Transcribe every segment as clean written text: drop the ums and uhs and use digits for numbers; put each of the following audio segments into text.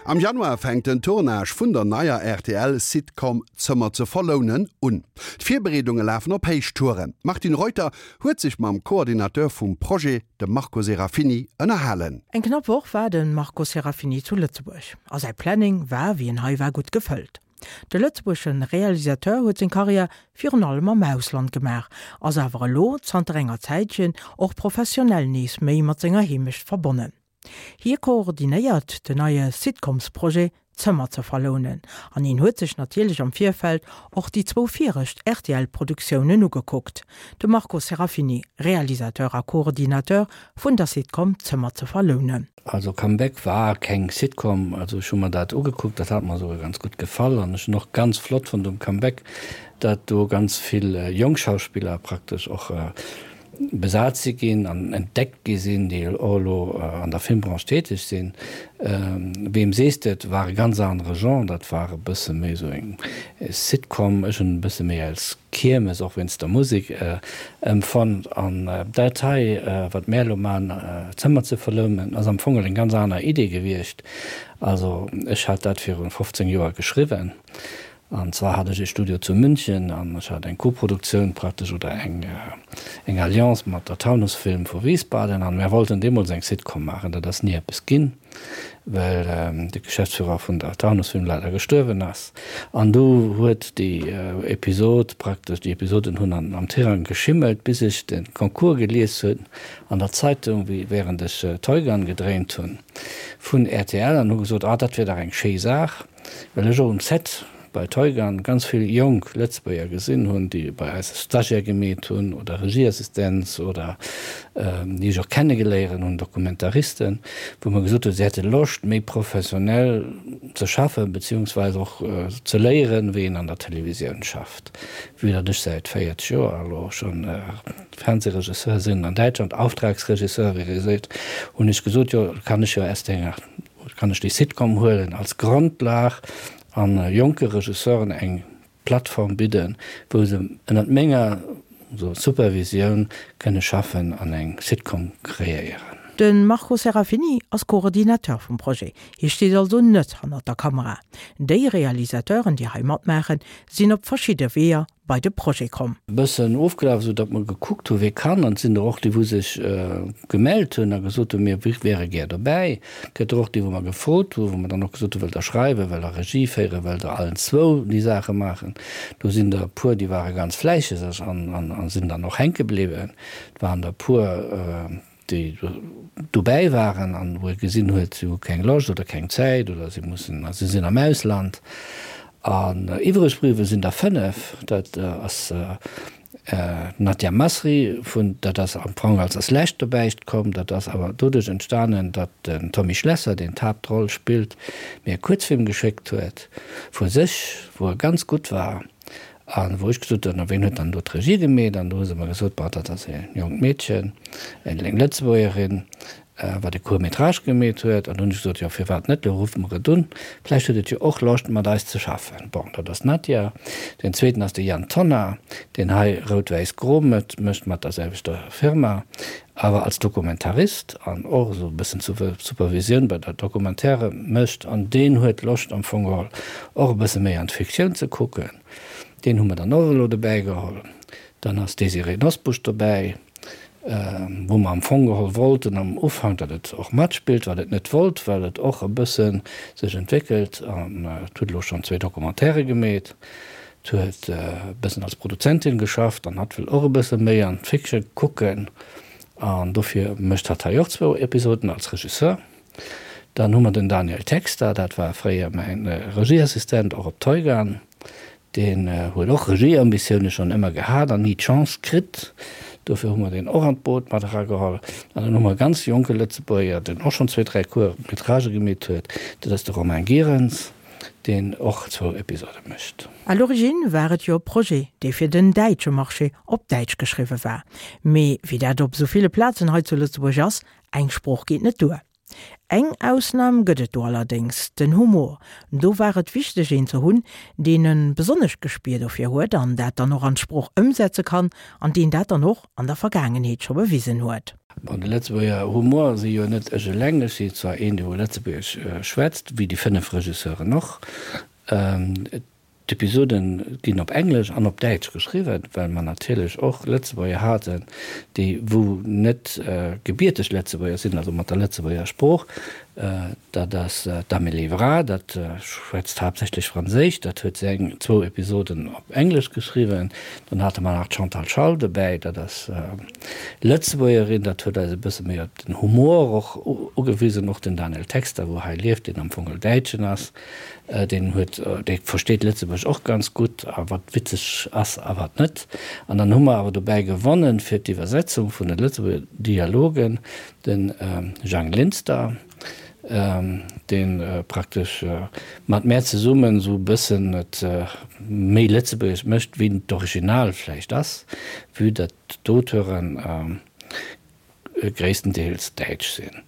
Am Januar fänkt den Tournage vun der neier RTL-Sitcom Zëmmer ze verlounen un. D'Virbereedunge lafen op Héichtouren. D'Martine Reuter huet sech mam Coordinateur vum Projet, dem Marco Serafini, ënnerhalen. Eng knapp Woch war de Marco Serafini zu Lëtzebuerg a säi Planning war, wéi en hei war, gutt gefëllt. De lëtzebuergesche Realisateur huet seng Karriär virun allem am Ausland gemaach, ass awer elo zanter enger Zäitchen och professionell nees méi mat senger Heemecht verbonnen. Hie koordinéiert den neie Sitcoms-Projet Zëmmer ze verlounen an hien huet sech natierlech am Virfeld och déi zwou virescht RTL-Produktiounen ugekuckt. De Marco Serafini, Realisateur a Koordinateur vun der Sitcom Zëmmer ze verlounen. Also Comeback war keng Sitcom, also ech hu mer dat ugekuckt, dat hat mer esouguer ganz gutt gefall an ech hunn och ganz flott fonnt um Comeback, dat do ganz vill jonk Schauspiller praktesch och besat si ginn an entdeckt gi sinn, déi och elo an der Filmbranche täteg sinn. Wem sees de et war e ganz anere Genre, dat war e bësse méi esou eng Sitcom, ech hunn e bësse méi als Kiermes, och wéinst der Musek, empfonnt. An dat hei, wat mär elo man, Zëmmer ze verlounen, ass am Fong eng ganz aner Idee gewiescht. Also ech hat dat virun 15 Joer geschriwwen An zwar hat ech ee Studio zu München an ech hat eng Koproduktioun praktesch oder eng eng Alliance mat der Taunus Film vu Wiesbaden an mär wollten deemools eng Sitcom maachen. Dat ass ni eppes ginn, well de Geschäftsführer vun der Taunus Film leider gestuerwen ass. An du huet déi Episod praktesch, déi Episoden hunn an am Tirang geschimmelt, bis ech de Concours gelies hunn an der Zeitung, wéi während ech Toygun gedréint hunn vun rtl an hu gesot, ah dat wier dach eng schéi Saach. Well ech och um Set bei Teugan ganz vill jonk Lëtzebuerger gesinn hunn, déi bei eis Stagiaire gemeet hunn oder Regieassistenz oder déi ech och kennegeléieren hunn, Dokumentaristen, wou mer gesot hunn, si hätte Loscht méi professionell ze schaffen, beziehungsweise och ze léieren, wéi een an der Televisioun schafft. Vue datt ech säit 40 Joer elo schonn Fernsehregisseur sinn an Däitschland, Auftragsregisseur, wéi ee seet, hunn ech gesot, jo kann ech jo aus denger Kann ech déi Sitcom huelen als Grondlag an jonke Regisseuren eng Plattform bidden, wou se ënnert menger Supervisioun kënne schaffen an eng Sitcom kreéieren. De Marco Serafini ass Coordinateur vum Projet. Hie steet also net hannert der Kamera. Déi Realisateuren, déi hei matmaachen, sinn op verschidde Weeër bei de Projet komm. Bëssen ofgelaf, esou datt mer gekuckt hu wie kann. An et sinn der och déi wou sech gemellt hunn a gesot hunn, mir wäre gär dobäi. Et gëtt der och déi wou mer gefrot hu, wou mer dann och gesot hu wëllt der schreiwen, wëllt der Regie féieren, wëllt der allen zwou déi Saache maachen. Do sinn der e puer déi ware ganz fläisseg an sinn dann och hänke bliwwen. Et waren der e puer, déi dobäi waren an wou ee gesinn huet, si hu keng Loscht oder keng Zäit oder si mussen, si sinn am Ausland. An iwwreg bliwwe sinn der 5, dat ass d'Nadia Masri vun, dat ass am Fong als als lescht dobäi komm, dat ass awer doduerch entstanen, datt den Tommy Schlesser, deen d'Haaptroll spillt, mir e Kuerzfilm geschéckt huet vu sech, wou e ganz gutt war. A wou ech gesot hunn, a ween huet dann do d'Regie gemeet? An do hu se mer gesot, Bon, dat ass e jonkt Meedchen, eng Lëtzebuergerin, wat e Court métrage gemeet huet. An do hunn ech gesot, Jo, firwat net, lo ruffe mer et un, vläicht huet et jo och Loscht, mat eis ze schaffen. Bon, dat ass d'Nadia. Deen zweeten ass de Yann Tonnar, deen hei Rout-Wäiss-Gro mécht mat der selwechter Firma, awer als Dokumentarist an och esou e bëssen Supervisioun bei der Documentaire mécht. An deen huet Loscht am Fong geholl och e bësse méi an d'Fiktioun ze kucken. Deen hu mer dann och elo dobäi geholl. Dann ass d'Désirée Nosbusch dobäi, wou mer am Fong geholl wollten am Ufank, datt et och matspillt, wat et net wollt, well et och e bësse sech entwéckelt an et huet elo schonn zwéi Documentairë gemeet. Et huet e bëssen als Produzentin geschafft an hatt wëll och e bësse méi an d'Fiction kucken an dofir mécht hatt hei och zwou Episoden als Regisseur. Dann hu mer den Daniel Texter, dat war fréier mäin Regieassistent och op Teugan. Deen huet och Regieambitioune schonn ëmmer gehat an ni d'Chance kritt. Dofir hu mer deen och an d'Boot mat erageholl. An dann hu mer e ganz jonke Lëtzebuerger, deen och schonn zwee, dräi Court-métragë gemeet huet, dat ass de Romain Gierens. deen och zwou Episode mécht. À l'origine war et jo e Projet, dee fir den däitsche Marché op Däitsch geschriwwe war. Mee wéi dat op esou ville Plazen hei zu Lëtzebuerg ass, eng Sprooch geet net duer. Eng Ausnam gëtt et do allerdéngs, den Humor. Do war et wichteg een ze hunn, deen e besonnescht Gespier dofir huet an dat dann och an d'Sprooch ëmsetze kann an deen dat dann och an der Vergaangenheet scho bewisen huet. Bon, de Lëtzebuerger Humor si jo net ech eleng. Ech si zwar een, dee wou Lëtzebuergesch schwätzt, wéi déi 5 Regisseuren och. D'Episode ginn op Englesch an op Däitsch geschriwwen, well mer natierlech och Lëtzebuerger haten, déi wou net gebierteg Lëtzebuerger sinn, also mat der Lëtzebuerger Sprooch. Dat ass d'Amélie Vra, dat schwätzt haaptsächlech Franséisch, dat huet seng zwou Episoden op Englesch geschriwwen. Dann hate mer nach d'Chantal Schall dobäi, dat ass Lëtzebuergerin, dat huet eis e bësse méi op den Humor och ugewisen. Och den Daniel Texter, wou hei lieft, deen am Fong e Däitschen ass, Deen huet, dee versteet Lëtzebuerg och ganz gutt a wat witzeg ass a wat net. An dann hu mer awer dobäi gewonnen, fir d'Iwwersetzung vun de Lëtzebuerger Dialogen, de Jang Linster, dee praktesch mat mär zesummen esou e bëssen et méi lëtzebuergesch mécht, wéi d'Original vläicht ass, vue datt d'Auteuren gréisstendeels däitsch sinn.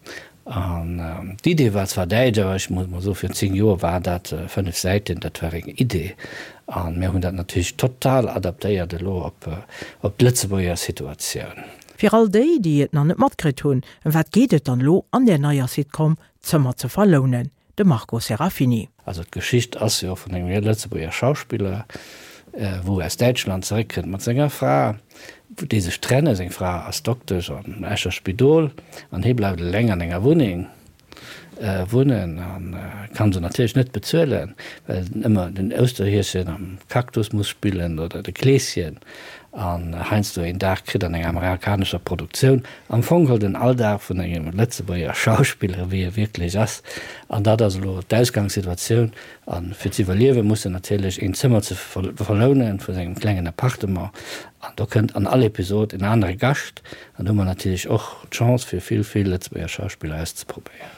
An d'Idee war zwar däitsch, awer ech muss mol soen, virun 10 Joer war dat 5 Säiten, dat war eng Idee. A mir hunn dat natierlech total adaptéiert elo op op d'Lëtzebuerger Situatioun. Fir all déi, déi et nach net matkritt hunn, ëm wat geet et dann elo an där neier Sitcom Zëmmer ze verlounen? De Marco Serafini. Also d'Geschicht ass jo vun engem Lëtzebuerger Schauspiller, wou aus Däitschland zeréckkënnt mat senger Fra, déi sech trennen. Seng Fra ass Doktesch am Escher Spidol an hie bleift eleng an enger Wunneng wunnen a kann se natierlech net bezuelen, well en ëmmer den Ousterhieschen am Cactus muss spillen oder de Kleeschen an heiansdo een Dag kritt an enger amerikanescher Produktioun. Am Fong geholl den Alldag vun engem Lëtzebuerger Schauspiller, wéi e wierklech ass. An dat ass elo d'Ausgangssituatioun. A fir ze iwwerliewe muss en natierlech een Zëmmer ze verlounen vu sengem klengen Appartement. An do kënnt an all Episod en anere Gascht. An do hu mer natierlech och d'Chance fir vill, vill Lëtzebuerger Schauspiller auszeprobéieren.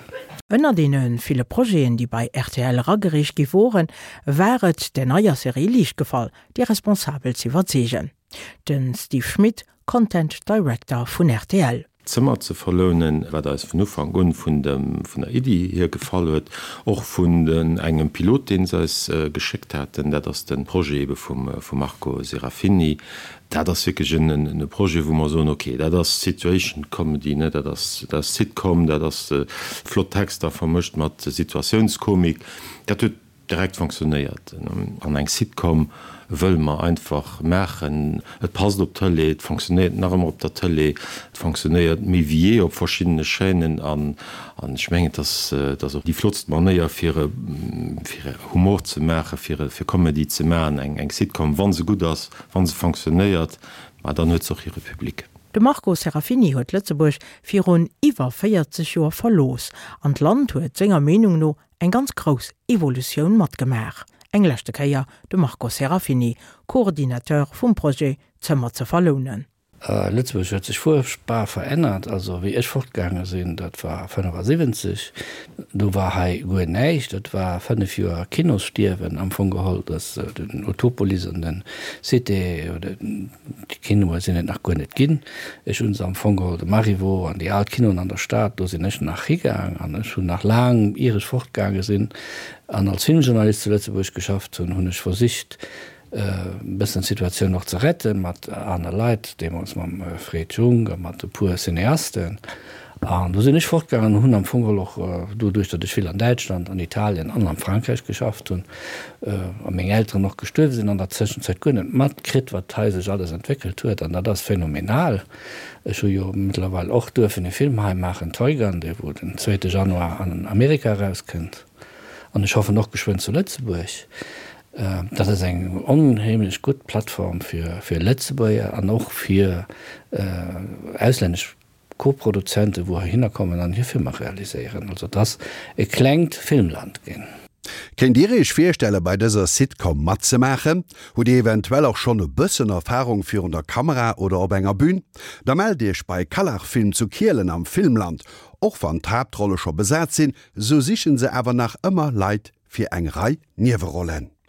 Ënner deene ville Projeten, déi bei rtl eragereecht gi woren, war et der neier Serie liicht gefall, déi Responsabel z'iwwerzeegen. De Steve Schmit, Content Director vun rtl. Zëmmer ze verlounen, wat eis vun Ufank un vun dem vun der Iddi hier gefall huet, och vun den engem Pilot deen se eis geschéckt haten, dat ass de Projet ebe vum vum Marco Serafini. Dat ass wierklech en en Projet wou mer soen, ok, dat ass Situation Comedy, ne, dat ass dat ass Sitcom, dat ass flott Texter vermëscht mat Situatiounskomik, dat huet Direkt fonctionnéiert. An eng Sitcom wëlle mer einfach maachen. Et passt op d'Tëlee, et fonctionnéiert nach ëmmer op der Tëlee, et fonctionnéiert méi wéi jee op verschiddene Chaînen an ech mengen, et ass, et ass och déi flottst Manéier fir fir Humor ze maachen, fir fir Comedy ze maachen, eng eng Sitcom, wa se gutt ass, wa se fonctionnéiert, ma dann huet se och hire Public. De Marco Serafini huet Lëtzebuerg virun iwwer 40 Joer verlooss an d'Land huet senger Meenung no Eng ganz grouss Evolutioun matgemaach. Eng leschte Kéier de Marco Serafini, Coordinateur vum Projet Zëmmer ze verlounen. Lëtzebuerg huet sech fuerchtbar verännert. Also wéi ech fortgaange sinn, dat war 75, do war hei guer näischt. Dat war 5 Joer Kinosstierwen am Fong geholl. Dass den Utopolis an den Cité oder déi Kinoe sinn et nach guer net ginn. Ech hu se am Fong geholl, de Marivaux an déi al Kinoen an der Stad, do sinn ech nach higaang an ech hunn nach laang, ier ech fortgaange sinn an als Filmjournalist zu Lëtzebuerg geschafft hunn, hunn ech versicht, e bëssen d'Situatioun och ze rette mat aner Leit, deemools mam Fred Junck a mat e puer Cineasten. An do sinn ech fortgaangen an hunn am Fong geholl och, doduerch datt ech vill an Däitschland, an Italien an am Frankräich geschafft hunn a meng Elteren och gestuerwe sinn an der Zëschenzäit, guer net matkritt, wat hei sech alles entwéckelt huet. An dat ass phänomenal. Ech hu jo mëttlerweil och duerfen e Film hei maachen, Toygun, dee wou den zweete Januar an Amerika erauskënnt an ech hoffen och geschwënn zu Lëtzebuerg. Dat ass eng onheemlech gutt Plattform fir Lëtzebuerger an och fir auslännesch Co-Produzenten, wou heihinner kommen an hir Filmer realiséieren. Also et ass e klengt Filmland ginn. Kéint Dir Iech virstelle bei dëser Sitcom matzemaachen? Hutt Dir eventuell och schonn e bëssen Erfarung virun der Kamera oder op enger Bühn? Da mellt Iech bei Kallach Film zu Kielen am Filmland. Och wann d'Haaptrolle scho besat sinn, sou sichen se awer nach ëmmer Leit fir eng Rei Niewerollen.